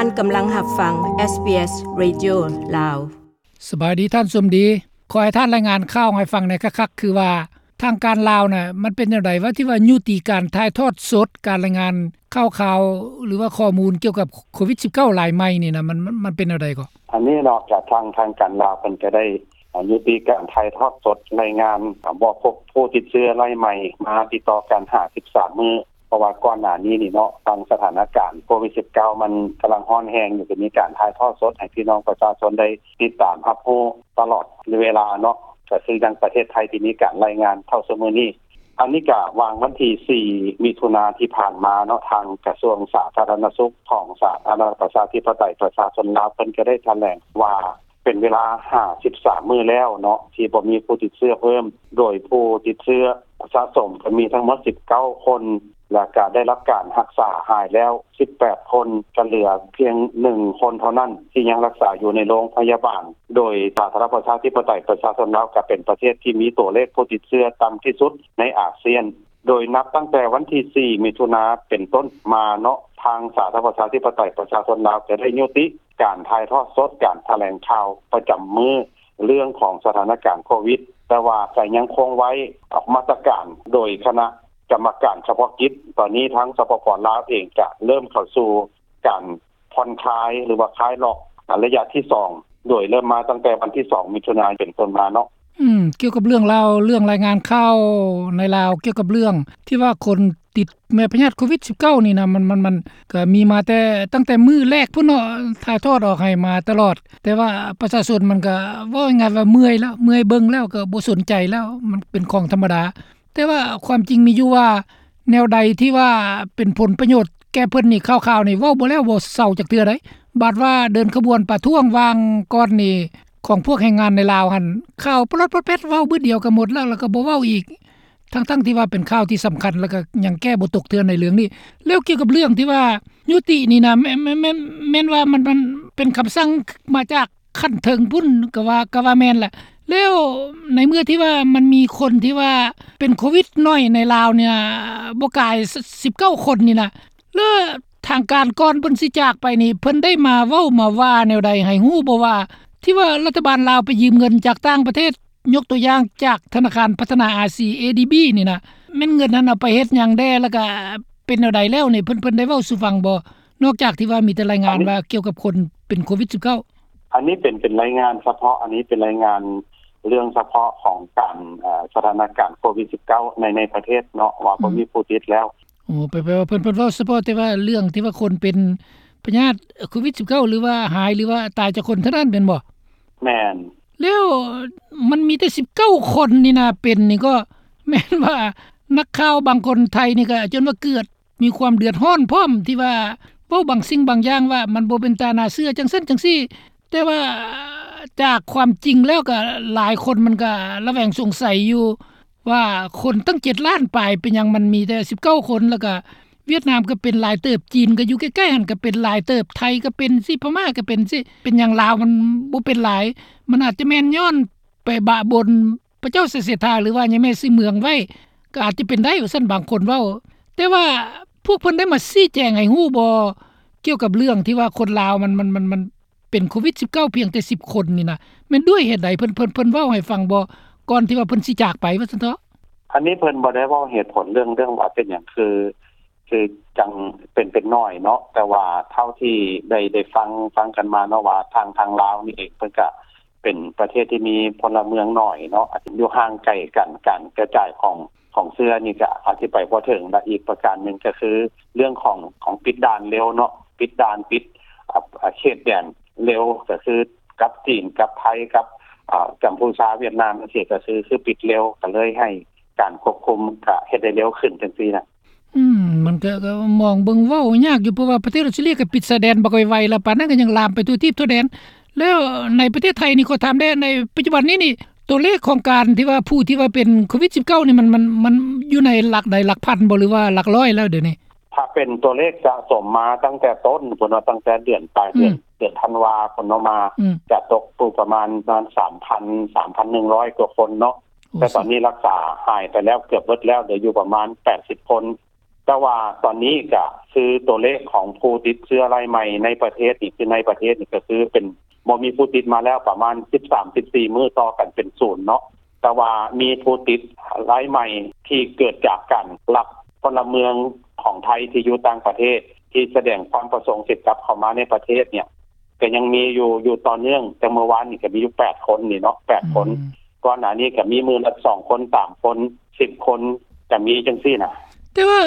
ທ່ານກຳລັງຮັບຟັງ ເອສບີເອສ Radio ລາວ. ສະບາຍດີທ່ານສົມດີ. ຂໍໃຫ້ທ່ານລາຍງານຂ່າວໃຫ້ຟັງແດ່ຄັກໆ ຄືວ່າທາງການລາວນະ ມັນເປັນແນວໃດ ວ່າທີ່ວ່າຍຸຕິການຖ່າຍທອດສົດ ການລາຍງານຂ່າວຄາວ ຫຼືວ່າຂໍ້ມູນກ່ຽວກັບໂຄວິດສິບເກົ້າລາຍໃໝ່ນີ້ນະ ມັນ ມັນ ມັນເປັນແນວໃດກໍ? ອັນນີ້ເນາະ ກະທາງ ທາງການລາວເພິ່ນກະໄດ້ ອາ ຍຸຕິການຖ່າຍທອດສົດລາຍງານ ອາ ບໍ່ພົບຜູ້ຕິດເຊື້ອລາຍໃໝ່ມາຕິດຕໍ່ກັນຫ້າສິບສາມມື້ ເພາະວ່າກ່ອນໜ້ານີ້ນີ້ເນາະ ທາງສະຖານະການໂຄວິດສິບເກົ້າມັນກຳລັງຮ້ອນແຮງຢູ່ ກໍມີການຖ່າຍທອດສົດໃຫ້ພີ່ນ້ອງປະຊາຊົນໄດ້ຕິດຕາມຮັບຮູ້ຕະຫຼອດເວລາເນາະ ກໍຄືຢ່າງປະເທດໄທທີ່ມີການລາຍງານເທົ່າຊຸມື້ນີ້. ອັນນີ້ກະຫວ່າງວັນທີສີ່ ມິຖຸນາທີ່ຜ່ານມາເນາະ ທາງກະຊວງສາທາລະນະສຸກຂອງສາທາລະນະລັດປະຊາທິປະໄຕປະຊາຊົນລາວ ເພິ່ນກະໄດ້ຖະແຫຼງວ່າ ເປັນເວລາຫ້າສິບສາມມື້ແລ້ວເນາະ ທີ່ບໍ່ມີຜູ້ຕິດເຊື້ອເພີ່ມ ໂດຍຜູ້ຕິດເຊື້ອສະສົມກໍມີທັງໝົດສິບເກົ້າຄົນ ແລ້ວກະໄດ້ຮັບການຮັກສາຫາຍແລ້ວສິບແປດຄົນ ກະເຫຼືອພຽງໜຶ່ງຄົນເທົ່ານັ້ນ ທີ່ຍັງຮັກສາຢູ່ໃນໂລງພະຍາບານ. ໂດຍສາທາລະນະລັດປະຊາທິປະໄຕປະຊາຊົນລາວ ກະເປັນປະເທດທີ່ມີຕົວເລກຜູ້ຕິດເຊື້ອຕ່ຳທີ່ສຸດໃນອາຊຽນ. ໂດຍນັບຕັ້ງແຕ່ວັນທີສີ່ ມິຖຸນາເປັນຕົ້ນມາເນາະ ທາງສາທາລະນະລັດປະຊາທິປະໄຕປະຊາຊົນລາວ ຈະໄດ້ຍຸຕິການຖ່າຍທອດສົດການຖະແຫຼງຂ່າວປະຈຳມື້ ເລື່ອງຂອງສະຖານະການໂຄວິດ, ແຕ່ວ່າຈະຍັງຄົງໄວ້ອອກມາດຕະການໂດຍຄະນະກຳມະການສະເພາະກິດ. ຕອນນີ້ທາງ ສປປ ລາວເອງ ຈະເລີ່ມເຂົ້າສູ່ການ ຜ່ອນຄາຍ ຫຼືວ່າຄາຍລັອກ ອາ ໄລຍະທີສອງ ໂດຍເລີ່ມມາຕັ້ງແຕ່ວັນທີສອງ ມິຖຸນາ ເປັນຕົ້ນມາເນາະ. ອືມ ກ່ຽວກັບເລື່ອງລາວ ເລື່ອງລາຍງານຂ່າວໃນລາວ ກ່ຽວກັບເລື່ອງທີ່ວ່າຄົນຕິດແມ່ພະຍາດໂຄວິດສິບເກົ້ານີ້ນະ ມັນ ມັນ ມັນກະມີມາແຕ່ ຕັ້ງແຕ່ມື້ແລກພຸ້ນເນາະ ຖ່າຍທອດອອກໃຫ້ມາຕະຫຼອດ ແຕ່ວ່າປະຊາຊົນມັນກະ ເວົ້າງ່າຍໆວ່າເມື່ອຍແລ້ວ ເມື່ອຍເບິ່ງແລ້ວ ກະບໍ່ສົນໃຈແລ້ວ ມັນເປັນຂອງທຳມະດາ. ແຕ່ວ່າຄວາມຈິງມີຢູ່ວ່າ ແນວໃດທີ່ວ່າເປັນຜົນປະໂຫຍດແກ່ເພິ່ນນີ້ ຂ່າວໆນີ້ເວົ້າບໍ່ແລ້ວບໍ່ເຊົາຈັກເທື່ອໃດ໋. ບາດວ່າເດີນຂະບວນປະທ້ວງຫວ່າງກ່ອນນີ້ ຂອງພວກແຮງງານໃນລາວຫັ້ນ ຂ່າວປະຫຼອດປອດແປດ ເວົ້າບຶດດຽວກໍໝົດແລ້ວ ແລ້ວກໍບໍ່ເວົ້າອີກ ທັງໆທີ່ວ່າເປັນຂ່າວທີ່ສຳຄັນ ແລ້ວກໍຍັງແກ້ບໍ່ຕົກເທື່ອໃນເລື່ອງນີ້. ແລ້ວກ່ຽວກັບເລື່ອງທີ່ວ່າຍຸຕິນີ້ນະ ແມ່ນ ແມ່ນ ແມ່ນ ແມ່ນວ່າມັນ ມັນເປັນຄຳສັ່ງມາຈາກ ຂັ້ນເທິງພຸ້ນ ກໍວ່າ ກໍວ່າແມ່ນລະ. ແລ້ວໃນເມື່ອທີ່ວ່າມັນມີຄົນທີ່ວ່າເປັນໂຄວິດໜ້ອຍໃນລາວນີ້ນະ ບໍ່ກາຍສິບເກົ້າຄົນນີ້ນະ ແລ້ວທາງການກ່ອນເພິ່ນຊິຈາກໄປນີ້ ເພິ່ນໄດ້ມາເວົ້າມາວ່າແນວໃດໃຫ້ຮູ້ບໍ່ວ່າ ທີ່ວ່າລັດຖະບານລາວໄປຢືມເງິນຈາກຕ່າງປະເທດ ຍົກຕົວຢ່າງຈາກທະນາຄານພັດທະນາອາຊີ ເອດີບີ ນີ້ນະ ແມ່ນເງິນນັ້ນເອົາໄປເຮັດຫຍັງແດ່ ແລ້ວກະເປັນແນວໃດແລ້ວນີ້ ເພິ່ນ ເພິ່ນໄດ້ເວົ້າສູ່ຟັງບໍ່? ນອກຈາກທີ່ວ່າມີແຕ່ລາຍງານວ່າກ່ຽວກັບຄົນເປັນໂຄວິດສິບເກົ້າ. ອັນນີ້ເປັນ ເປັນລາຍງານສະເພາະ ອັນນີ້ເປັນລາຍງານເລື່ອງສະເພາະຂອງການ ເອີ ສະຖານະການໂຄວິດສິບເກົ້າໃນ ໃນປະເທດເນາະ ວ່າບໍ່ມີຜູ້ຕິດແລ້ວ. ໂອ້ ແປ ແປວ່າເພິ່ນ ເພິ່ນເວົ້າສະເພາະແຕ່ວ່າເລື່ອງທີ່ວ່າຄົນເປັນພະຍາດໂຄວິດສິບເກົ້າ ຫຼືວ່າຫາຍ ຫຼືວ່າຕາຍຈາກຄົນເທົ່ານັ້ນແມ່ນບໍ່? ແມ່ນ. ແລ້ວມັນມີແຕ່ສິບເກົ້າຄົນນີ້ນະ ເປັນນີ້ກໍແມ່ນວ່ານັກຂ່າວບາງຄົນໄທນີ້ກໍຈົນວ່າເກືອດ ມີຄວາມເດືອດຮ້ອນພ້ອມ ທີ່ວ່າເວົ້າບາງສິ່ງບາງຢ່າງວ່າມັນບໍ່ເປັນຕາໜ້າເຊື່ອ ຈັ່ງຊັ້ນຈັ່ງຊີ້ ແຕ່ວ່າຈາກຄວາມຈິງແລ້ວກໍຫຼາຍຄົນມັນກໍລະແວງສົງໄສຢູ່ວ່າ ຄົນຕັ້ງເຈັດລ້ານປາຍ ເປັນຫຍັງມັນມີແຕ່ສິບເກົ້າຄົນ? ແລ້ວກໍຫວຽດນາມກໍເປັນຫຼາຍເຕີບ, ຈີນກໍຢູ່ໃກ້ໆຫັ້ນກໍເປັນຫຼາຍເຕີບ, ໄທກໍເປັນຊີ້, ພະມ້າກໍເປັນຊີ້, ເປັນຫຍັງລາວມັນບໍ່ເປັນຫຼາຍ? ມັນອາດຈະແມ່ນຍ້ອນໄປບະບົນ ພະເຈົ້າໄຊເສດຖາ ຫຼືວ່າຍາແມ່ຊື່ເມືອງໄວ້ ກໍອາດຈະເປັນໄດ້ວ່າຊັ້ນ ບາງຄົນເວົ້າ. ແຕ່ວ່າພວກເພິ່ນໄດ້ມາຊີ້ແຈງໃຫ້ຮູ້ບໍ່ ກ່ຽວກັບເລື່ອງທີ່ວ່າຄົນລາວມັນ ມັນ ມັນ ມັນເປັນໂຄວິດສິບເກົ້າພຽງແຕ່ສິບຄົນນີ້ນະ ແມ່ນດ້ວຍເຫດໃດ? ເພິ່ນ ເພິ່ນ ເພິ່ນເວົ້າໃຫ້ຟັງບໍ່ ກ່ອນທີ່ວ່າເພິ່ນຊິຈາກໄປວ່າຊັ້ນເຖາະ? ອັນນີ້ເພິ່ນບໍ່ໄດ້ເວົ້າເຫດຜົນເລື່ອງ ເລື່ອງວ່າເປັນຫຍັງ ຄື ຄືຈັ່ງເປັນ ເປັນໜ້ອຍເນາະ ແຕ່ວ່າເທົ່າທີ່ໄດ້ ໄດ້ຟັງ ຟັງກັນມາເນາະ ວ່າທາງ ທາງລາວນີ້ເອງ ເພິ່ນກະເປັນປະເທດທີ່ມີພົນລະເມືອງໜ້ອຍເນາະ ອາດຈະຢູ່ຫ່າງໄກກັນ ການກະຈາຍຂອງ ຂອງເຊື້ອນີ້ກະອະທິບາຍບໍ່ເຖິງ ແລະ ອີກປະການໜຶ່ງກະຄືເລື່ອງຂອງ ຂອງປິດດ່ານເລັວເນາະ ປິດດ່ານ ປິດ ອາ ເຂດແດນເລັວ ກະຄືກັບຈີນ ກັບໄທ ກັບ ອາ ກຳພູຊາ ຫວຽດນາມ ຈັ່ງຊີ້ ກະຄື ຄືປິດເລັວ ກະເລີຍໃຫ້ ການຄວບຄຸມກະເຮັດໄດ້ເລັວຂຶ້ນຈັ່ງຊີ້ນະ. ອືມ ມັນກະ ກະມອງເບິ່ງເວົ້າຍາກຢູ່ ເພາະວ່າປະເທດອອສເຕຣເລຍກະປິດຊາຍແດນບັກໄວໆ ແລ້ວປານນັ້ນກະຍັງລາມໄປທົ່ວທີບທົ່ວແດນ. ແລ້ວໃນປະເທດໄທນີ້ ຂໍຖາມແດ່ ໃນປັດຈຸບັນນີ້ນີ້ ຕົວເລກຂອງການທີ່ວ່າ ຜູ້ທີ່ວ່າເປັນໂຄວິດສິບເກົ້ານີ້ ມັນ ມັນ ມັນຢູ່ໃນຫຼັກໃດ ຫຼັກພັນບໍ່ ຫຼືວ່າຫຼັກຮ້ອຍແລ້ວດຽວນີ້? ຖ້າເປັນຕົວເລກສະສົມມາຕັ້ງແຕ່ຕົ້ນພຸ້ນເນາະ ຕັ້ງແຕ່ເດືອນ ປາຍເດືອນ ອືມ ເດືອນທັນວາພຸ້ນເນາະ ມາ ອືມ ກະຕົກຢູ່ປະມານ ປະມານສາມພັນ ສາມພັນໜຶ່ງຮ້ອຍກວ່າຄົນເນາະ. ໂອ້ ແຕ່ຕອນນີ້ລັກສາຫາຍໄປແລ້ວເກືອບເບິດແລ້ວ ເຫຼືອຢູ່ປະມານແປດສິບຄົນ. ແຕ່ວ່າຕອນນີ້ກະຄືໂຕເລກຂອງຜູ້ຕິດເຊື້ອລາຍໃໝ່ໃນປະເທດນີ້ ຄືໃນປະເທດນີ້ກະຄືເປັນ ບໍ່ມີຜູ້ຕິດມາແລ້ວປະມານສິບສາມ ສິບສີ່ມື້ ຕໍ່ກັນເປັນສູນເນາະ. ແຕ່ວ່າມີຜູ້ຕິດລາຍໃໝ່ທີ່ເກີດຈາກການລັກພະລະເມືອງຂອງໄທທີ່ຢູ່ຕ່າງປະເທດ ທີ່ສະແດງຄວາມປະສົງຊິກັບເຂົ້າມາໃນປະເທດເນ່ຍ ກະຍັງມີຢູ່ ຢູ່ຕໍ່ເນື່ອງ. ແຕ່ເມື່ອວານນີ້ກະມີຢູ່ແປດຄົນນີ້ເນາະ ແປດຄົນ. ອືມ ກ່ອນໜ້ານີ້ກະມີມື້ລະສອງຄົນ ສາມຄົນ ສິບຄົນ ກະມີຈັ່ງຊີ້ນະ. ແຕ່ວ່າ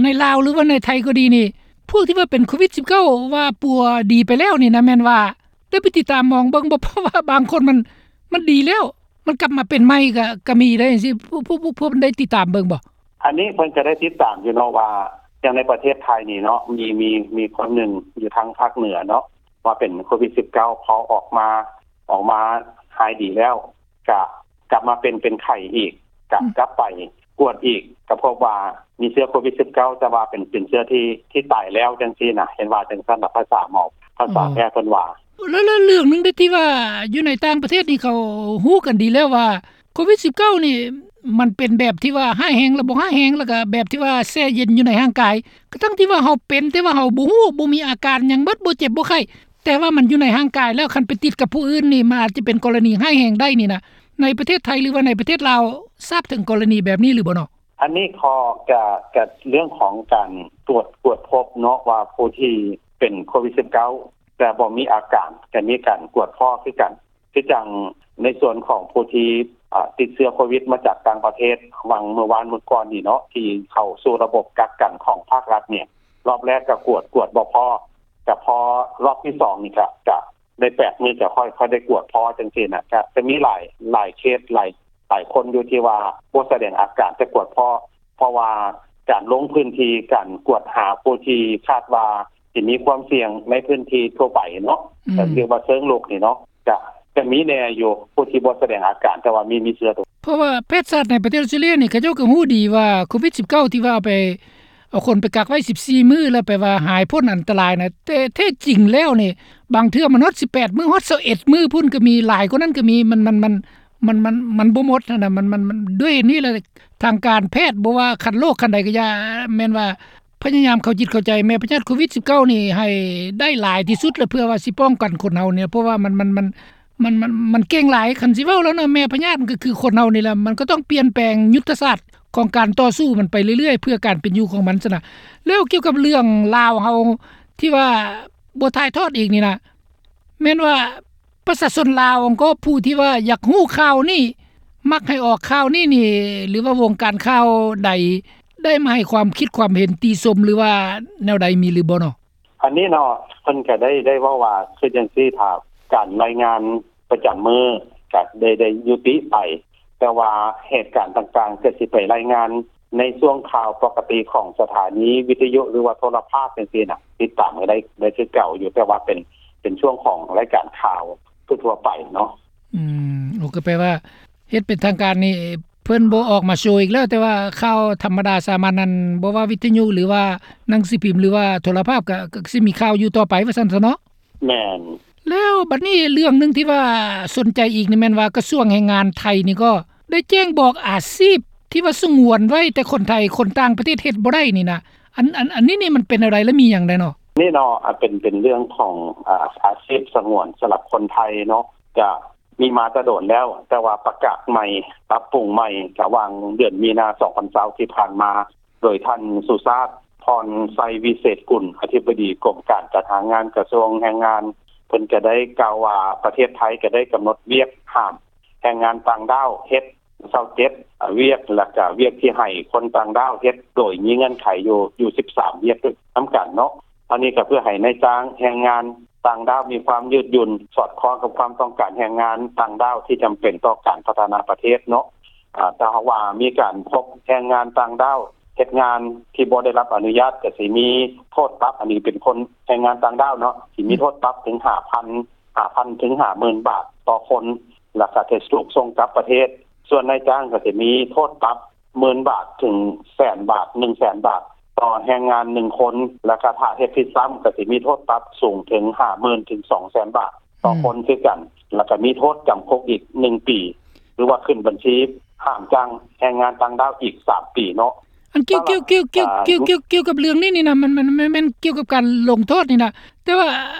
ໃນລາວ ຫຼືວ່າໃນໄທກໍດີນີ້ ພວກທີ່ວ່າເປັນໂຄວິດສິບເກົ້າ ວ່າປົວດີໄປແລ້ວນີ້ນະ ແມ່ນວ່າໄດ້ໄປຕິດຕາມມອງເບິ່ງບໍ່? ເພາະວ່າບາງຄົນມັນ ມັນດີແລ້ວ ມັນກັບມາເປັນໃໝ່ກະ ກະມີໄດ້ຈັ່ງຊີ້ ພວກ ພວກ ພວກ ພວກໄດ້ຕິດຕາມເບິ່ງບໍ່? ອັນນີ້ເພິ່ນກະໄດ້ຕິດຕາມຢູ່ເນາະ ວ່າຢ່າງໃນປະເທດໄທນີ້ເນາະ ມີ ມີ ມີຄົນໜຶ່ງຢູ່ທາງພາກເໜືອເນາະ ວ່າເປັນໂຄວິດສິບເກົ້າ ພໍອອກມາ ອອກມາຫາຍດີແລ້ວ ກະກັບມາເປັນ ເປັນໄຂ້ອີກ ກະ ອືມ ກັບໄປກວດອີກ ກະພົບວ່າມີເຊື້ອໂຄວິດສິບເກົ້າ ແຕ່ວ່າເປັນ ເປັນເຊື້ອທີ່ ທີ່ຕາຍແລ້ວຈັ່ງຊີ້ນະ ເຫັນວ່າຈັ່ງຊັ້ນນະ ພາສາໝໍ ພາສາ ອໍ ແພດເພິ່ນວ່າ. ແລ້ວ ແລ້ວເລື່ອງໜຶ່ງເດ້ ທີ່ວ່າຢູ່ໃນຕ່າງປະເທດນີ້ ເຂົາຮູ້ກັນດີແລ້ວວ່າ ໂຄວິດສິບເກົ້ານີ້ ມັນເປັນແບບທີ່ວ່າຮ້າຍແຮງ ແລ້ວບໍ່ຮ້າຍແຮງ ແລ້ວກະແບບທີ່ວ່າແຊ່ເຢັນຢູ່ໃນຮ່າງກາຍ ກະທັ່ງທີ່ວ່າເຮົາເປັນ ແຕ່ວ່າເຮົາບໍ່ຮູ້ ບໍ່ມີອາການຫຍັງໝົດ ບໍ່ເຈັບບໍ່ໄຂ້ ແຕ່ວ່າມັນຢູ່ໃນຮ່າງກາຍແລ້ວ ຄັນໄປຕິດກັບຜູ້ອື່ນນີ້ ມັນອາດຈະເປັນກໍລະນີຮ້າຍແຮງໄດ້ນີ້ນະ. ໃນປະເທດໄທ ຫຼືວ່າໃນປະເທດລາວ ຊາບເຖິງກໍລະນີແບບນີ້ຫຼືບໍ່ເນາະ? ອັນນີ້ເຂົາກະ ກະເລື່ອງຂອງການກວດ ກວດພົບເນາະ ວ່າຜູ້ທີ່ເປັນໂຄວິດສິບເກົ້າ ແຕ່ບໍ່ມີອາການ ກະມີການກວດພໍ້ຄືກັນ. ຄືຈັ່ງໃນສ່ວນຂອງຜູ້ທີ່ ອາ ຕິດເຊື້ອໂຄວິດມາຈາກຕ່າງປະເທດ ຫວ່າງເມື່ອວານມື້ກ່ອນນີ້ເນາະ ທີ່ເຂົ້າສູ່ລະບົບກັກກັນຂອງພາກລັດນີ້ ລອບແລກກະກວດ ກວດບໍ່ພໍ້ ກະພໍລອບທີສອງນີ້ກະ ກະໄດ້ແປດມື້ ກະຄ່ອຍ ຄ່ອຍໄດ້ກວດພໍ້ຈັ່ງຊີ້ນະ. ກະຈະມີຫຼາຍ ຫຼາຍເຄສ ຫຼາຍ ຫຼາຍຄົນຢູ່ທີ່ວ່າບໍ່ສະແດງອາການ ແຕ່ກວດພໍ້ ເພາະວ່າການລົງພື້ນທີ່ ການກວດຫາຜູ້ທີ່ຄາດວ່າ ທີ່ມີຄວາມສ່ຽງໃນພື້ນທີ່ທົ່ວໄປເນາະ ອືມ ເອີ້ນວ່າເຊີງລຸກນີ້ເນາະ ກະ ກະມີແດ່ຢູ່ ຜູ້ທີ່ບໍ່ສະແດງອາການ ແຕ່ວ່າມີ ມີເຊື້ອໂຕ. ເພາະວ່າແພດສັດໃນປະເທດອອສເຕຣເລຍນີ້ ເຂົາເຈົ້າກະຮູ້ດີວ່າໂຄວິດສິບເກົ້າ ທີ່ວ່າເອົາໄປ ເອົາຄົນໄປກັກໄວ້ສິບສີ່ມື້ ແລ້ວໄປວ່າຫາຍພົ້ນອັນຕະລາຍນະ ແຕ່ແທ້ຈິງແລ້ວນີ້ ບາງເທື່ອມັນຮອດສິບແປດມື້ ຮອດຊາວເອັດມື້ພຸ້ນກະມີ ຫຼາຍກວ່ານັ້ນກະມີ ມັນ ມັນ ມັນ ມັນ ມັນ ມັນບໍ່ໝົດຫັ້ນນະ ມັນ ມັນ ມັນ ດ້ວຍນີ້ລະ ທາງການແພດ ບໍ່ວ່າຄັນໂລກຄັນໃດກະຢ່າ ແມ່ນວ່າພະຍາຍາມເຂົ້າຈິດເຂົ້າໃຈແມ່ພະຍາດໂຄວິດສິບເກົ້ານີ້ໃຫ້ໄດ້ຫຼາຍທີ່ສຸດລະ ເພື່ອວ່າຊິປ້ອງກັນຄົນເຮົານີ້ ເພາະວ່າມັນ ມັນ ມັນ ມັນ ມັນ ມັນເກັ່ງຫຼາຍ. ຄັນຊິເວົ້າແລ້ວເນາະ ແມ່ພະຍາດມັນກະຄືຄົນເຮົານີ້ລະ ມັນກະຕ້ອງປ່ຽນແປງຍຸດທະສາດຂອງການຕໍ່ສູ້ມັນໄປເລື້ອຍໆ ເພື່ອການເປັນຢູ່ຂອງມັນຊັ້ນນະ. ແລ້ວກ່ຽວກັບເລື່ອງລາວເຮົາທີ່ວ່າບໍ່ຖ່າຍທອດອີກນີ້ນະ ແມ່ນວ່າ ປະຊາຊົນລາວ ແລະກໍຜູ້ທີ່ວ່າຢາກຮູ້ຂ່າວນີ້ ມັກໃຫ້ອອກຂ່າວນີ້ນີ້ ຫຼືວ່າວົງການຂ່າວໃດ ໄດ້ມາໃຫ້ຄວາມຄິດຄວາມເຫັນຕິຊົມ ຫຼືວ່າແນວໃດມີຫຼືບໍ່ເນາະ? ອັນນີ້ເນາະ ເພິ່ນກະໄດ້ ໄດ້ເວົ້າວ່າ ຄືຈັ່ງຊີ້ ຖ້າການລາຍງານປະຈຳມື້ກະໄດ້ ໄດ້ຍຸຕິໄປ ແຕ່ວ່າເຫດການຕ່າງໆ ກະຊິໄປລາຍງານໃນຊ່ວງຂ່າວປົກກະຕິຂອງສະຖານີວິທະຍຸ ຫຼືວ່າໂທລະພາບຈັ່ງຊີ້ນະ ຕິດຕາມກະໄດ້ ໄດ້ຄືເກົ່າຢູ່ ແຕ່ວ່າເປັນ ເປັນຊ່ວງຂອງລາຍການຂ່າວທົ່ວໆໄປເນາະ. ອືມ ໂອ ກະແປວ່າເຮັດເປັນທາງການນີ້ ເພິ່ນບໍ່ອອກມາໂຊອີກແລ້ວ ແຕ່ວ່າຂ່າວທຳມະດາສາມັນນັ້ນ ບໍ່ວ່າວິທະຍຸ ຫຼືວ່າໜັງສືພິມ ຫຼືວ່າໂທລະພາບ ກະ ກະຊິມີຂ່າວຢູ່ຕໍ່ໄປວ່າຊັ້ນຊະເນາະ. ແມ່ນ. ແລ້ວບັດນີ້ເລື່ອງໜຶ່ງທີ່ວ່າສົນໃຈອີກນີ້ແມ່ນວ່າ ກະຊວງແຮງງານໄທນີ້ກໍໄດ້ແຈ້ງບອກອາຊີບທີ່ວ່າສະຫງວນໄວ້ ແຕ່ຄົນໄທ ຄົນຕ່າງປະເທດເຮັດບໍ່ໄດ້ນີ້ນະ ອັນ ອັນ ອັນນີ້ນີ້ມັນເປັນແນວໃດ ແລະມີຫຍັງແດ່ເນາະ? ນີ້ເນາະ ອາ ເປັນ ເປັນເລື່ອງຂອງ ອາ ອາຊີບສະຫງວນສຳລັບຄົນໄທເນາະ ກະມີມາແຕ່ດົນແລ້ວ ແຕ່ວ່າປະກາດໃໝ່ ປັບປຸງໃໝ່ ກະຫວ່າງເດືອນມີນາ ສອງພັນຊາວ ທີ່ຜ່ານມາ ໂດຍທ່ານ ສຸຊາດ ພອນໄຊວິເສດກຸນ ອະທິບໍດີກົມການຈັດຫາງານ ກະຊວງແຮງງານ ເພິ່ນກະໄດ້ກ່າວວ່າ ປະເທດໄທກະໄດ້ກຳນົດວຽກຫ້າມແຮງງານຕ່າງດ້າວເຮັດ ຊາວເຈັດວຽກ ແລະກະວຽກທີ່ໃຫ້ຄົນຕ່າງດ້າວເຮັດ ໂດຍມີເງື່ອນໄຂຢູ່ ຢູ່ສິບສາມວຽກນຳກັນເນາະ. ອັນນີ້ກະເພື່ອໃຫ້ນາຍຈ້າງແຮງງານຕ່າງດ້າວມີຄວາມຍືດຫຍຸ່ນ ສອດຄ່ອງກັບຄວາມຕ້ອງການແຮງງານຕ່າງດ້າວທີ່ຈຳເປັນຕໍ່ການພັດທະນາປະເທດເນາະ. ອາ ຖ້າຫາກວ່າມີການພົບແຮງງານຕ່າງດ້າວເຮັດງານທີ່ບໍ່ໄດ້ຮັບອະນຸຍາດ ກະຊິມີໂທດປັບ ອັນນີ້ເປັນຄົນແຮງງານຕ່າງດ້າວເນາະ ຊິມີໂທດປັບເຖິງຫ້າພັນ ຫ້າພັນເຖິງຫ້າໝື່ນບາດຕໍ່ຄົນ ແລະກະຈະຖືກສົ່ງກັບປະເທດ. ສ່ວນນາຍຈ້າງກະຈະມີໂທດປັບ ໝື່ນບາດເຖິງແສນບາດ ໜຶ່ງແສນບາດຕໍ່ແຮງງານໜຶ່ງຄົນ ແລະກະຖ້າເຮັດຜິດຊ້ຳກະຊິມີໂທດປັບສູງເຖິງຫ້າໝື່ນເຖິງສອງແສນບາດຕໍ່ຄົນຄືກັນ ແລະກະມີໂທດຈຳຄຸກອີກໜຶ່ງປີ ຫຼືວ່າຂຶ້ນບັນຊີຫ້າມຈ້າງແຮງງານຕ່າງດ້າວອີກສາມປີເນາະ. ອັນກ່ຽວ ກ່ຽວ ກ່ຽວ ກ່ຽວ ກ່ຽວ ກ່ຽວ ກ່ຽວກັບເລື່ອງນີ້ນີ້ນະ ມັນ ມັນ ມັນແມ່ນກ່ຽວກັບການລົງໂທດນີ້ນະ ແຕ່ວ່າ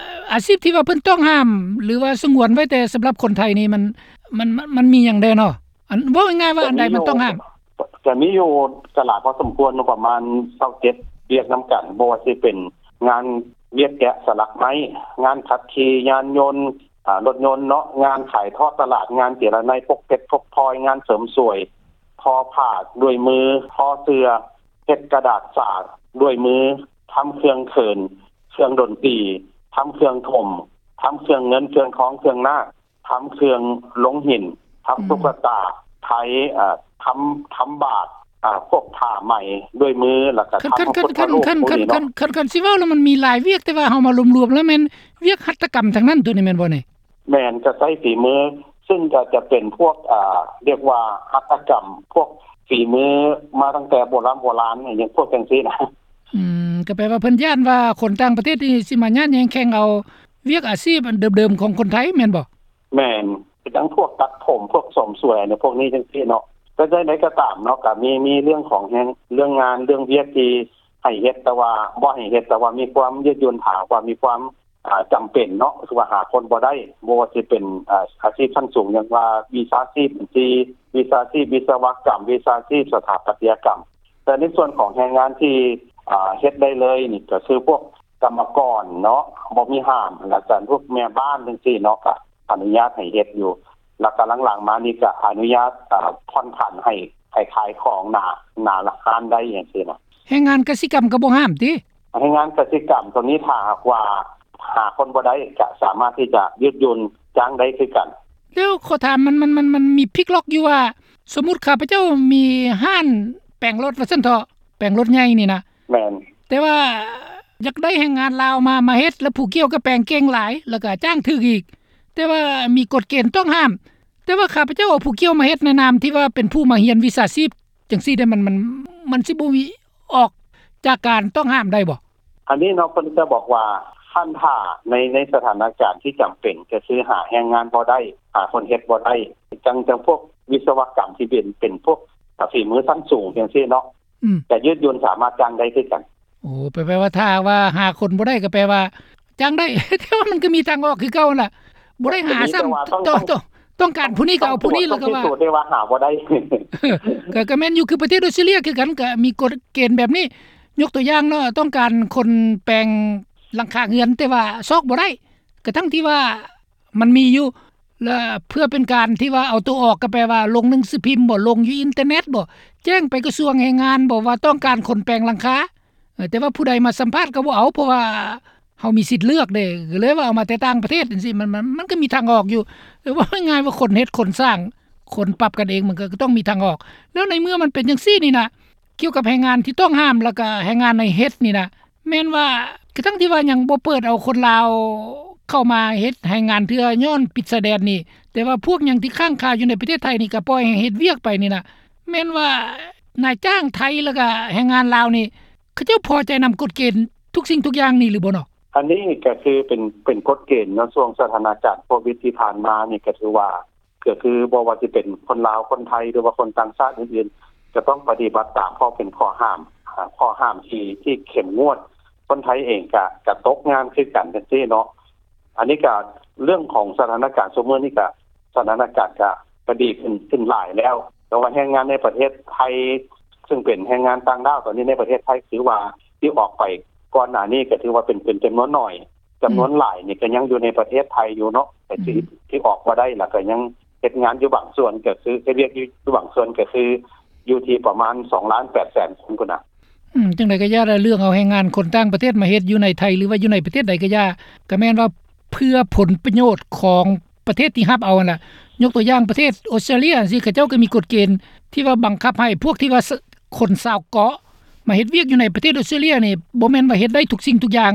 ອາຊີບທີ່ວ່າເພິ່ນຕ້ອງຫ້າມ ຫຼືວ່າສະຫງວນໄວ້ແຕ່ສຳລັບຄົນໄທນີ້ ມັນ ມັນ ມັນ ມັນມີຫຍັງແດ່ເນາະ? ອັນ ເວົ້າງ່າຍໆວ່າອັນໃດມັນຕ້ອງຫ້າມ? ກະມີຢູ່ ກະຫຼາຍພໍສົມຄວນເນາະ ປະມານຊາວເຈັດວຽກນຳກັນ ບໍ່ວ່າຊິເປັນງານວຽກແກະສະຫຼັກໄມ້, ງານຂັບຂີ່ຍານຍົນ, ອາ, ລົດຍົນເນາະ, ງານຂາຍທອດຕະຫຼາດ, ງານເຈລະໄນ, ພົກເພັດ, ພົກພອຍ, ງານເສີມສວຍ, ທໍຜ້າດ້ວຍມື, ທໍເສື້ອ, ເຮັດກະດາດສາດ້ວຍມື, ທຳເຄື່ອງເຂີນ, ເຄື່ອງດົນຕີ, ທຳເຄື່ອງຖົມ, ທຳເຄື່ອງເງິນ, ເຄື່ອງທອງ, ເຄື່ອງນາກ, ທຳເຄື່ອງລົງຫີນ, ທຳ ອືມ ຕຸກກະຕາ, ໄທ, ເອີ, ທຳ, ທຳບາດ, ອາ, ພວກຜ້າໄໝດ້ວຍມື, ແລ້ວກະ ຄັນ ທຳ ຄັນ ພະພຸດທະຮູບ ຄັນ ພວກນີ້ເນາະ. ຄັນ ຄັນ ຄັນຊິເວົ້າແລ້ວມັນມີຫຼາຍວຽກ, ແຕ່ວ່າເຮົາມາລວມໆແລ້ວແມ່ນວຽກຫັດຖະກຳທັງນັ້ນ ໂຕນີ້ແມ່ນບໍ່ນີ້? ແມ່ນ, ຈະໃຊ້ຝີມື, ຊຶ່ງກໍຈະເປັນພວກ, ອາ, ຮຽກວ່າຫັດຖະກຳ, ພວກຝີມືມາຕັ້ງແຕ່ໂບລານໂບລານ, ຫຍັງພວກຈັ່ງຊີ້ນະ. ອືມ, ກໍແປວ່າເພິ່ນຢ້ານວ່າຄົນຕ່າງປະເທດນີ້ຊິມາຍາດແຍ່ງແຂ່ງເອົາວຽກອາຊີບອັນເດີມໆຂອງຄົນໄທແມ່ນບໍ່? ແມ່ນ, ຄືຈັ່ງພວກຕັດຜົມ, ພວກເສີມສວຍ ອັນພວກນີ້ຈັ່ງຊີ້ເນາະ. ແຕ່ໃດກໍຕາມເນາະ, ກໍມີ, ມີເລື່ອງຂອງແຮງ, ເລື່ອງງານ, ເລື່ອງວຽກທີ່ໃຫ້ເຮັດ, ແຕ່ວ່າບໍ່ໃຫ້ເຮັດ, ແຕ່ວ່າມີຄວາມຍືດຫຍຸ້ນ, ຖ້າຫາກວ່າມີຄວາມ, ອາ, ຈຳເປັນເນາະ, ຄືວ່າຫາຄົນບໍ່ໄດ້, ບໍ່ວ່າຊິເປັນ, ອາ, ອາຊີບຊັ້ນສູງ ຢ່າງວ່າວິຊາຊີບບັນຊີ, ວິຊາຊີບວິສະວະກຳ, ວິຊາຊີບສະຖາປັດຕະຍະກຳ. ແຕ່ໃນສ່ວນຂອງແຮງງານທີ່, ອາ, ເຮັດໄດ້ເລີຍນີ້ ກໍຄືພວກ ກຳມະກອນເນາະ ບໍ່ມີຫ້າມ, ແລ້ວກໍພວກແມ່ບ້ານຈັ່ງຊີ້ເນາະ ກໍອະນຸຍາດໃຫ້ເຮັດຢູ່, ແລ້ວກໍຫຼັງໆມານີ້ກໍອະນຸຍາດ, ອາ, ຜ່ອນຜັນໃຫ້, ໃຫ້ຂາຍຂອງໜ້າ, ໜ້າຮ້ານໄດ້ຈັ່ງຊີ້ນະ. ແຮງງານກະສິກຳກໍບໍ່ຫ້າມຕິ? ແຮງງານກະສິກຳໂຕນີ້ ຖ້າຫາກວ່າຫາຄົນບໍ່ໄດ້ ກໍສາມາດທີ່ຈະຍືດຫຍຸ້ນຈ້າງໄດ້ຄືກັນ. ແລ້ວຂໍຖາມ ມັນ, ມັນ, ມັນ, ມັນມີພິກລັອກຢູ່ວ່າ ສົມມຸດຂ້າພະເຈົ້າມີຮ້ານແປງລົດວ່າຊັ້ນເຖາະ, ແປງລົດໃຫຍ່ນີ້ນະ. ແມ່ນ. ແຕ່ວ່າຢາກໄດ້ແຮງງານລາວມາ, ມາເຮັດ, ແລ້ວຜູ້ກ່ຽວກໍແປງເກັ່ງຫຼາຍ, ແລ້ວກໍຈ້າງຖືກອີກ, ແຕ່ວ່າມີກົດເກນຕ້ອງຫ້າມ. ແຕ່ວ່າຂ້າພະເຈົ້າເອົາຜູ້ກ່ຽວມາເຮັດໃນນາມທີ່ວ່າເປັນຜູ້ມາຮຽນວິຊາຊີບຈັ່ງຊີ້ເດ້, ມັນ, ມັນ, ມັນຊິບໍ່ມີອອກຈາກການຕ້ອງຫ້າມໄດ້ບໍ່? ອັນນີ້ເນາະ ເພິ່ນຈະບອກວ່າ ຄັນຖ້າໃນ, ໃນສະຖານະການທີ່ຈຳເປັນ ກໍຄືຫາແຮງງານບໍ່ໄດ້, ຫາຄົນເຮັດບໍ່ໄດ້, ຈັ່ງ, ຈັ່ງພວກວິສະວະກຳທີ່ເປັນ, ເປັນພວກ ອາ, ຝີມືຊັ້ນສູງຈັ່ງຊີ້ເນາະ. ອືມ. ຈະຍືດຫຍຸ້ນສາມາດຈ້າງໄດ້ຄືກັນ. ໂອ້ ແປ, ແປວ່າຖ້າຫາກວ່າຫາຄົນບໍ່ໄດ້ກໍແປວ່າຈ້າງໄດ້, ແຕ່ວ່າມັນກໍມີທາງອອກຄືເກົ່າຫັ້ນລະ, ບໍ່ໄດ້ຫາຊ້ຳ, ຕ້ອງ, ຕ້ອງ, ຕ້ອງການຜູ້ນີ້ກໍເອົາຜູ້ນີ້, ແລ້ວກໍວ່າ ຕ້ອງພິສູດໄດ້ວ່າຫາບໍ່ໄດ້. ກໍ, ກໍແມ່ນຢູ່, ຄືປະເທດອອສເຕຣເລັຍຄືກັນ, ກໍມີກົດເກນແບບນີ້. ຍົກຕົວຢ່າງເນາະ, ຕ້ອງການຄົນແປງຫຼັງຄາເຮືອນ, ແຕ່ວ່າຊອກບໍ່ໄດ້, ກະທັ່ງທີ່ວ່າ ມັນມີຢູ່ ແລະ ເພື່ອເປັນການທີ່ວ່າເອົາໂຕອອກ ກໍແປວ່າລົງໜັງສືພິມບໍ ລົງຢູ່ອິນເຕີເນັດບໍ ແຈ້ງໄປກະຊວງແຮງງານບໍວ່າຕ້ອງການຄົນແປງຫຼັງຄາ. ເອີ ແຕ່ວ່າຜູ້ໃດມາສຳພາດກໍບໍ່ເອົາ ເພາະວ່າເຮົາມີສິດເລືອກເດ້, ກໍເລີຍວ່າເອົາມາແຕ່ຕ່າງປະເທດຈັ່ງຊີ້. ມັນ, ມັນ, ມັນກໍມີທາງອອກຢູ່, ແຕ່ເວົ້າງ່າຍໆວ່າຄົນເຮັດ, ຄົນສ້າງ, ຄົນປັບກັນເອງ ມັນກໍ, ກໍຕ້ອງມີທາງອອກ. ແລ້ວໃນເມື່ອມັນເປັນຈັ່ງຊີ້ນີ້ນະ, ກ່ຽວກັບແຮງງານທີ່ຕ້ອງຫ້າມ ແລ້ວກໍແຮງງານໃນເຮັດນີ້ນະ, ແມ່ນວ່າ ກະທັ່ງທີ່ວ່າຍັງບໍ່ເປີດເອົາຄົນລາວເຂົ້າມາເຮັດແຮງງານເທື່ອ ຍ້ອນປິດຊາຍແດນນີ້, ແຕ່ວ່າພວກຫຍັງທີ່ຄ້າງຄາຢູ່ໃນປະເທດໄທນີ້ ກໍປ່ອຍໃຫ້ເຮັດວຽກໄປນີ້ນະ, ແມ່ນວ່ານາຍຈ້າງໄທ ແລ້ວກໍແຮງງານລາວນີ້ ເຂົາເຈົ້າພໍໃຈນຳກົດເກນທຸກສິ່ງທຸກຢ່າງນີ້ຫຼືບໍ່ເນາະ? ອັນນີ້ກໍຄືເປັນ, ເປັນກົດເກນເນາະ, ຊ່ວງສະຖານະການໂຄວິດທີ່ຜ່ານມານີ້ ກໍຖືວ່າ ກໍຄືບໍ່ວ່າຊິເປັນຄົນລາວ, ຄົນໄທ ຫຼືວ່າຄົນຕ່າງຊາດອື່ນໆ ຈະຕ້ອງປະຕິບັດຕາມ ເພາະເປັນຂໍ້ຫ້າມ, ອາ, ຂໍ້ຫ້າມທີ່, ທີ່ເຂັ້ມງວດ. ຄົນໄທເອງກະ, ກະຕົກງານຄືກັນຈັ່ງຊີ້ເນາະ. ອັນນີ້ກະເລື່ອງຂອງສະຖານະການຊຸມມື້ນີ້ກະ, ສະຖານະການກະ, ກະດີຂຶ້ນ, ຂຶ້ນຫຼາຍແລ້ວ. ແຕ່ວ່າແຮງງານໃນປະເທດໄທ ຊຶ່ງເປັນແຮງງານຕ່າງດ້າວຕອນນີ້ໃນປະເທດໄທ ຖືວ່າທີ່ອອກໄປກ່ອນໜ້ານີ້ ກະຖືວ່າເປັນ, ເປັນຈຳນວນໜ້ອຍ. ຈຳນວນ ອືມ ຫຼາຍນີ້ກໍຍັງຢູ່ໃນປະເທດໄທຢູ່ເນາະ, ແຕ່ທີ່, ອືມ ທີ່ອອກມາໄດ້ ແລ້ວກໍຍັງເຮັດງານຢູ່ບາງສ່ວນ ກໍຄືເຮັດວຽກຢູ່, ຢູ່ບາງສ່ວນ ກໍຄືຢູ່ທີ່ປະມານສອງລ້ານແປດແສນຄົນພຸ້ນນະ. ອືມ, ຈັ່ງໃດກໍຢ່າລະ ເລື່ອງເອົາແຮງງານຄົນຕ່າງປະເທດມາເຮັດຢູ່ໃນໄທ ຫຼືວ່າຢູ່ໃນປະເທດໃດກໍຢ່າ, ກໍແມ່ນວ່າເພື່ອຜົນປະໂຫຍດຂອງປະເທດທີ່ຮັບເອົາຫັ້ນລະ. ຍົກຕົວຢ່າງປະເທດອອສເຕຣເລັຍຈັ່ງຊີ້ ເຂົາເຈົ້າກໍມີກົດເກນທີ່ວ່າບັງຄັບໃຫ້ພວກທີ່ວ່າ ສ-, ຄົນຊາວເກາະມາເຮັດວຽກຢູ່ໃນປະເທດອອສເຕຣເລັຍນີ້ ບໍ່ແມ່ນວ່າເຮັດໄດ້ທຸກສິ່ງທຸກຢ່າງ,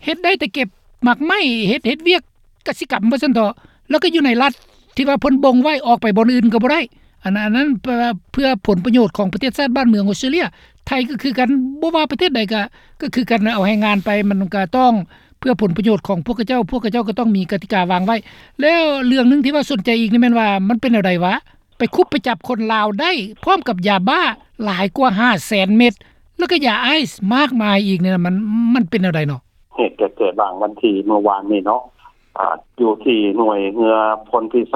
ເຮັດໄດ້ແຕ່ເກັບໝາກໄມ້, ເຮັດ, ເຮັດວຽກກະສິກຳວ່າຊັ້ນເຖາະ, ແລ້ວກໍຢູ່ໃນລັດທີ່ວ່າເພິ່ນບົ່ງໄວ້, ອອກໄປບ່ອນອື່ນກໍບໍ່ໄດ້. ອັນ, ອັນນັ້ນເພື່ອ, ເພື່ອຜົນປະໂຫຍດຂອງປະເທດຊາດບ້ານເມືອງອອສເຕຣເລັຍ. ໄທກໍຄືກັນ, ບໍ່ວ່າປະເທດໃດກໍ, ກໍຄືກັນ, ເອົາແຮງງານໄປ ມັນກໍຕ້ອງເພື່ອຜົນປະໂຫຍດຂອງພວກເຂົາເຈົ້າ, ພວກເຂົາເຈົ້າກໍຕ້ອງມີກະຕິກາວາງໄວ້. ແລ້ວເລື່ອງໜຶ່ງທີ່ວ່າສົນໃຈອີກນີ້ແມ່ນວ່າ ມັນເປັນແນວໃດຫວາ? ໄປຄຸບໄປຈັບຄົນລາວໄດ້ ພ້ອມກັບຢາບ້າຫຼາຍກວ່າຫ້າແສນເມັດ ແລ້ວກໍຢາໄອສ໌ມາກມາຍອີກນີ້ນະ ມັນ ມັນເປັນແນວໃດເນາະ? ເຫດກໍເກີດຫວ່າງວັນທີ ເມື່ອວານນີ້ເນາະ ອາ ຢູ່ທີ່ໜ່ວຍເຮືອໂພນພິໄສ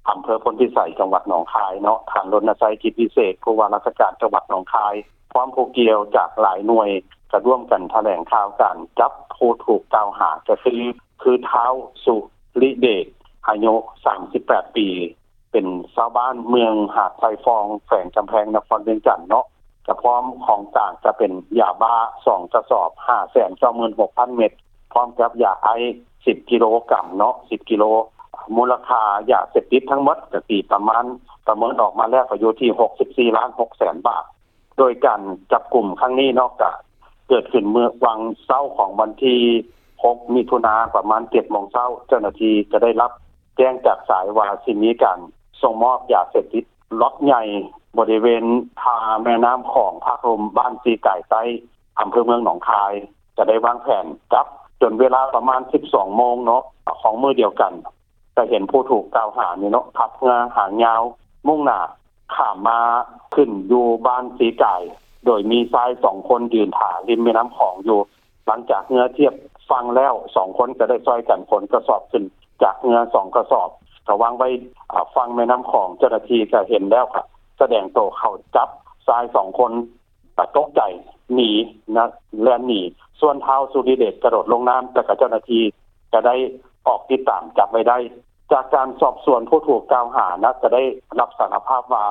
ອຳເພີໂພນພິໄສ ຈັງຫວັດໜອງຄາຍເນາະ ທ່ານ ລົນນະໄຊ ກິດວິເສດ ຜູ້ວ່າລາຊະການຈັງຫວັດໜອງຄາຍ ພ້ອມຜູ້ກ່ຽວຈາກຫຼາຍໜ່ວຍ ກໍຮ່ວມກັນຖະແຫຼງຂ່າວການຈັບຜູ້ຖືກກ່າວຫາ ກໍຄື ຄື ທ້າວ ສຸລິເດດ ອາຍຸສາມສິບແປດປີ ເປັນຊາວບ້ານເມືອງຫາດຊາຍຟອງ ແຂວງກຳແພງນະຄອນວຽງຈັນເນາະ ກະພ້ອມຂອງກາງກະເປັນຢາບ້າສອງກະສອບ ຫ້າແສນເກົ້າໝື່ນຫົກພັນເມັດ ພ້ອມກັບຢາໄອສ໌ສິບກິໂລກຣາມເນາະ ສິບກິໂລ ມູນລະຄ່າຢາເສບຕິດທັງໝົດກະຕີປະມານ ປະເມີນອອກມາແລ້ວກະຢູ່ທີ່ຫົກສິບສີ່ລ້ານຫົກແສນບາດ. ໂດຍການຈັບກຸມຄັ້ງນີ້ເນາະ ກະເກີດຂຶ້ນເມື່ອຫວ່າງເຊົ້າຂອງວັນທີຫົກ ມິຖຸນາ ປະມານເຈັດໂມງເຊົ້າ ເຈົ້າໜ້າທີ່ກະໄດ້ຮັບແຈ້ງຈາກສາຍວ່າຊິມີການສົ່ງມອບຢາເສບຕິດລັອດໃຫຍ່ ບໍລິເວນທ່າແມ່ນ້ຳຂອງ ພາກລຸ່ມບ້ານສີກາຍໃຕ້ ອຳເພີເມືອງໜອງຄາຍ ກະໄດ້ວາງແຜນຈັບ ຈົນເວລາປະມານສິບສອງໂມງເນາະ ຂອງມື້ດຽວກັນ ກະເຫັນຜູ້ຖືກກ່າວຫານີ້ເນາະ ຂັບເຮືອຫາງຍາວ ມຸ່ງໜ້າຂ້າມມາຂຶ້ນຢູ່ບ້ານສີກາຍ ໂດຍມີຊາຍສອງຄົນຢືນຖ້າລິມແມ່ນ້ຳຂອງຢູ່. ຫຼັງຈາກເຮືອທຽບຝັ່ງແລ້ວ ສອງຄົນກະໄດ້ຊ່ອຍກັນຂົນກະສອບຂຶ້ນຈາກເຮືອສອງກະສອບ ກະວາງໄວ້ ອາ ຝັ່ງແມ່ນ້ຳຂອງ. ເຈົ້າໜ້າທີ່ກະເຫັນແລ້ວ ກະສະແດງໂຕເຂົ້າຈັບຊາຍສອງຄົນ ກະຕົກໃຈໜີນະ ແລ່ນໜີ. ສ່ວນທ້າວ ສຸລິເດດ ກະໂດດລົງນ້ຳ ແຕ່ກະເຈົ້າໜ້າທີ່ກະໄດ້ອອກຕິດຕາມຈັບໄວ້ໄດ້. ຈາກການສອບສວນຜູ້ຖືກກ່າວຫານະ ກະໄດ້ຮັບສາລະພາບວ່າ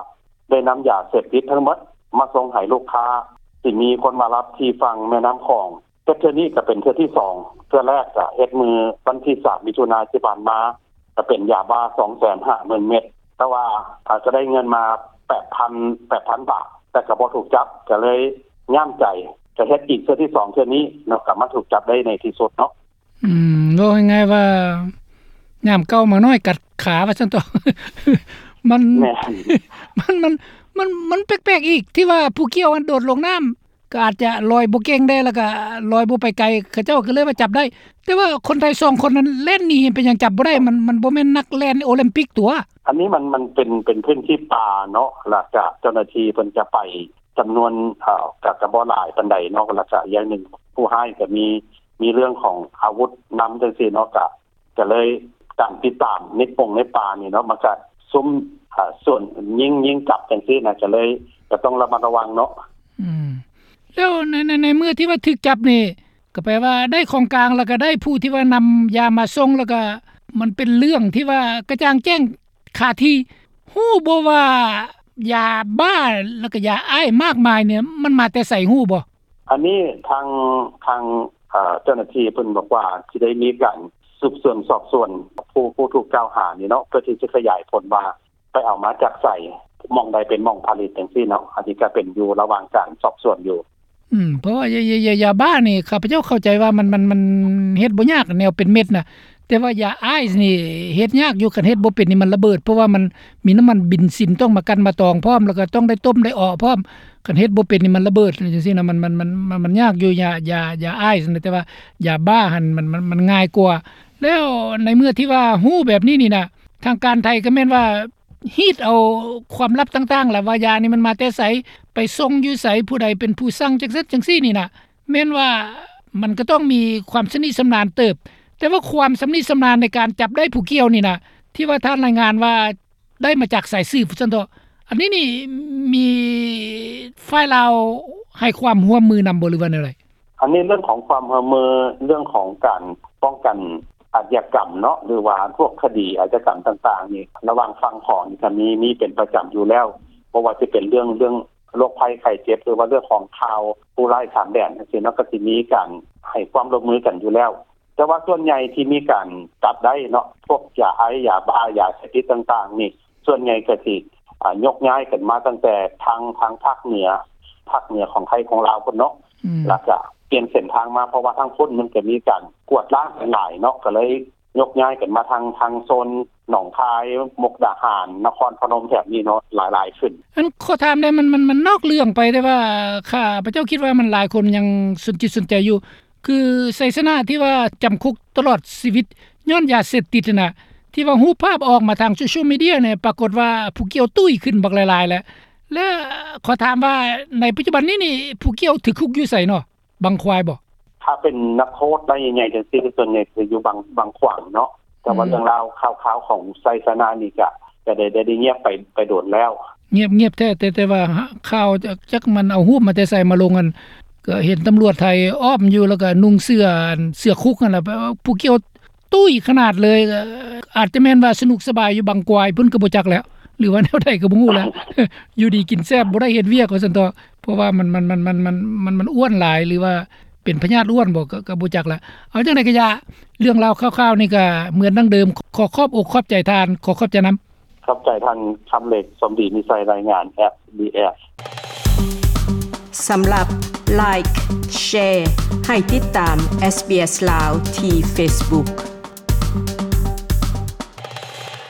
ໄດ້ນຳຢາເສບຕິດທັງໝົດມາສົ່ງໃຫ້ລູກຄ້າ ທີ່ມີຄົນມາຮັບທີ່ຝັ່ງແມ່ນ້ຳຂອງ. ເຮັດເທື່ອນີ້ກະເປັນເທື່ອທີສອງ ເທື່ອແລກກະເຮັດມື້ວັນທີສາມ ມິຖຸນາທີ່ຜ່ານມາ ກະເປັນຢາບ້າສອງແສນຫ້າໝື່ນເມັດ ແຕ່ວ່າ ອາ ກະໄດ້ເງິນມາແປດພັນ ແປດພັນບາດ ແຕ່ກະບໍ່ຖືກຈັບ ກະເລີຍຫຍາບໃຈ ກະເຮັດອີກເທື່ອທີສອງເທື່ອນີ້ເນາະ ກະມາຖືກຈັບໄດ້ໃນທີ່ສຸດເນາະ. ອືມ ເວົ້າງ່າຍໆວ່າ ຍາມເກົ່າໝານ້ອຍກັດຂາວ່າຊັ້ນເຖາະ ມັນ ແມ່ນ ມັນ ມັນ ມັນ ມັນແປກໆອີກ ທີ່ວ່າຜູ້ກ່ຽວຫັ້ນໂດດລົງນ້ຳ ກໍອາດຈະລອຍບໍ່ເກັ່ງແດ່ ແລ້ວກໍລອຍບໍ່ໄປໄກ ເຂົາເຈົ້າກໍເລີຍວ່າຈັບໄດ້ ແຕ່ວ່າຄົນໄທສອງຄົນນັ້ນແລ່ນໜີ ເປັນຫຍັງຈັບບໍ່ໄດ້? ມັນ ມັນບໍ່ແມ່ນນັກແລ່ນໂອລິມປິກຕົວະ. ອັນນີ້ມັນ ມັນເປັນ ເປັນພື້ນທີ່ປ່າເນາະ ແລ້ວກະເຈົ້າໜ້າທີ່ເພິ່ນຈະໄປຈຳນວນ ເອີ ກະ ກະບໍ່ຫຼາຍປານໃດເນາະ ແລ້ວກະຢ່າງໜຶ່ງ ຜູ້ຮ້າຍກະມີ ມີເລື່ອງຂອງອາວຸດນຳຈັ່ງຊີ້ເນາະ ກະ ກະເລີຍການຕິດຕາມໃນປົງໃນປ່ານີ້ເນາະ ມັນກະຊຸມ ເອີ ສ່ວນຍິງ ຍິງຈັບຈັ່ງຊີ້ນະ ກະເລີຍກະຕ້ອງລະມັດລະວັງເນາະ. ອືມ ແລ້ວໃນ ໃນ ໃນເມື່ອທີ່ວ່າຖືກຈັບນີ້ ກໍແປວ່າໄດ້ຂອງກາງ ແລ້ວກໍໄດ້ຜູ້ທີ່ວ່ານຳຢາມາສົ່ງ ແລ້ວກໍມັນເປັນເລື່ອງທີ່ວ່າກະຈ່າງແຈ້ງຄາທີ່ ຮູ້ບໍ່ວ່າຢາບ້າ ແລ້ວກໍຢາໄອສ໌ມາກມາຍນີ້ ມັນມາແຕ່ໃສ ຮູ້ບໍ່? ອັນນີ້ທາງ ທາງ ເອີ ເຈົ້າໜ້າທີ່ເພິ່ນບອກວ່າ ຊິໄດ້ມີການສືບສວນສອບສວນຜູ້ ຜູ້ຖືກກ່າວຫານີ້ເນາະ ເພື່ອທີ່ຈະຂະຫຍາຍຜົນວ່າ ໄປເອົາມາຈາກໃສ ໝ່ອງໃດເປັນໝ່ອງຜະລິດຈັ່ງຊີ້ເນາະ ອັນນີ້ກະເປັນຢູ່ລະຫວ່າງການສອບສວນຢູ່. ອືມ ເພາະວ່າຢາ ຢາ ຢາ ຢາບ້ານີ້ ຂ້າພະເຈົ້າເຂົ້າໃຈວ່າມັນ ມັນ ມັນເຮັດບໍ່ຍາກ ແນວເປັນເມັດນະ ແຕ່ວ່າຢາໄອສ໌ນີ້ເຮັດຍາກຢູ່ ຄັນເຮັດບໍ່ເປັນນີ້ມັນລະເບີດ ເພາະວ່າມັນມີນ້ຳມັນເບນຊິນຕ້ອງມາກັ່ນມາຕອງພ້ອມ ແລ້ວກໍຕ້ອງໄດ້ຕົ້ມໄດ້ເອາະພ້ອມ ຄັນເຮັດບໍ່ເປັນນີ້ມັນລະເບີດຈັ່ງຊີ້ນະ ມັນ ມັນ ມັນ ມັນ ມັນຍາກຢູ່ ຢາ ຢາ ຢາໄອສ໌ນະ ແຕ່ວ່າຢາບ້າຫັ້ນມັນ ມັນ ມັນ ມັນງ່າຍກວ່າ. ແລ້ວໃນເມື່ອທີ່ວ່າຮູ້ແບບນີ້ນີ້ນະ ທາງການໄທກໍແມ່ນວ່າ ຮີດເອົາຄວາມລັບຕ່າງໆ ລະວ່າຢານີ້ມັນມາແຕ່ໃສ ໄປສົ່ງຢູ່ໃສ ຜູ້ໃດເປັນຜູ້ສັ່ງ ຈັ່ງຊັ້ນຈັ່ງຊີ້ນີ້ນະ ແມ່ນວ່າມັນກໍຕ້ອງມີຄວາມຊຳນິຊຳນານເຕີບ ແຕ່ວ່າຄວາມຊຳນິຊຳນານໃນການຈັບໄດ້ຜູ້ກ່ຽວນີ້ນະ ທີ່ວ່າທ່ານລາຍງານວ່າໄດ້ມາຈາກສາຍສືບຊັ້ນເຖາະ ອັນນີ້ນີ້ມີຝ່າຍລາວໃຫ້ຄວາມຮ່ວມມືນຳບໍ່ ຫຼືວ່າແນວໃດ? ອັນນີ້ເລື່ອງຂອງຄວາມຮ່ວມມື ເລື່ອງຂອງການປ້ອງກັນອາດຍາກຳເນາະ ຫຼືວ່າພວກຄະດີອາດຍາກຳຕ່າງໆນີ້ ລະຫວ່າງຝັ່ງຂອງນີ້ກະມີ ມີເປັນປະຈຳຢູ່ແລ້ວ ບໍ່ວ່າຊິເປັນເລື່ອງ ເລື່ອງໂລກໄພໄຂ້ເຈັບ ຫຼືວ່າເລື່ອງຂອງຂ່າວຜູ້ຮ້າຍຂ້າມແດນຈັ່ງຊີ້ເນາະ ກະຊິມີການໃຫ້ຄວາມຮ່ວມມືກັນຢູ່ແລ້ວ. ແຕ່ວ່າສ່ວນໃຫຍ່ທີ່ມີການຈັບໄດ້ເນາະ ພວກຢາໄອສ໌ ຢາບ້າ ຢາເສບຕິດຕ່າງໆນີ້ ສ່ວນໃຫຍ່ກະຊິ ອາ ຍົກຍ້າຍກັນມາຕັ້ງແຕ່ທາງ ທາງພາກເໜືອ ພາກເໜືອຂອງໄທຂອງລາວພຸ້ນເນາະ ອືມ ແລ້ວກະປ່ຽນເສັ້ນທາງມາ ເພາະວ່າທາງພຸ້ນມັນກະມີການກວດລ້າງກັນຫຼາຍເນາະ ກະເລີຍຍົກຍ້າຍກັນມາທາງ ທາງໂຊນໜອງຄາຍ ມຸກດາຫານ ນະຄອນພະນົມແຖບນີ້ເນາະ ຫຼາຍໆຂຶ້ນ. ອັນ ຂໍຖາມແດ່ ມັນ ມັນ ມັນນອກເລື່ອງໄປ ແຕ່ວ່າຂ້າພະເຈົ້າຄິດວ່າມັນຫຼາຍຄົນຍັງສົນຈິດສົນໃຈຢູ່ ຄືໄຊຊະນະທີ່ວ່າຈຳຄຸກຕະຫຼອດຊີວິດຍ້ອນຢາເສບຕິດຫັ້ນນະ ທີ່ ທີ່ວ່າຮູບພາບອອກມາທາງໂຊຊຽວມີເດຍນີ້ ປາກົດວ່າຜູ້ກ່ຽວຕຸ້ຍຂຶ້ນບັກຫຼາຍໆແລ້ວ ແລະ ຂໍຖາມວ່າໃນປັດຈຸບັນນີ້ນີ້ ຜູ້ກ່ຽວຖືກຄຸກຢູ່ໃສເນາະ? ບັງຄວາຍບໍ່? ຖ້າເປັນນັກໂທດລາຍໃຫຍ່ໆ ຈັ່ງຊີ້ ສ່ວນໃຫຍ່ຈະຢູ່ບັງ ບັງຂວາງເນາະ ແຕ່ວ່າ ອືມ ເລື່ອງລາວຂ່າວໆຂອງໄຊຊະນະນີ້ກະ ກະໄດ້ ໄດ້ ໄດ້ງຽບໄປ ໄປດົນແລ້ວ. ງຽບ ງຽບແທ້ແຕ່ ແຕ່ວ່າຂ່າວ ຈັກ ຈັກມັນເອົາຮູບມາແຕ່ໃສມາລົງຫັ້ນ ກະເຫັນຕຳຫຼວດໄທອ້ອມຢູ່ ແລ້ວກະນຸ່ງເສື້ອ ອັນ ເສື້ອຄຸກຫັ້ນລະ ຜູ້ກ່ຽວ ຕຸ້ຍຂະໜາດເລີຍ. ອາດຈະແມ່ນວ່າສະໜຸກສະບາຍຢູ່ບັງຄວາຍພຸ້ນກະບໍ່ຈັກແລ້ວ ຫຼືວ່າແນວໃດກະບໍ່ຮູ້ແລ້ວ ຢູ່ດີກິນແຊບ ບໍ່ໄດ້ເຮັດວຽກວ່າຊັ້ນເຖາະ ເພາະວ່າມັນ ມັນ ມັນ ມັນ ມັນ ມັນ ມັນອ້ວນຫຼາຍ ຫຼືວ່າເປັນພະຍາດອ້ວນບໍ ກະ ກະບໍ່ຈັກລະ. ເອົາຈັ່ງໃດກະຢ່າ ເລື່ອງລາວຂ່າວໆນີ້ກະເໝືອນດັ່ງເດີມ. ຂໍຂອບອົກຂອບໃຈທ່ານ ຂໍຂອບໃຈນຳ. ຂອບໃຈທ່ານຄຳເລັກ ສົມດີມີໄຊ ລາຍງານ SBS. ສຳລັບ Like Share ໃຫ້ຕິດຕາມ SBS ລາວ ທີ່ Facebook.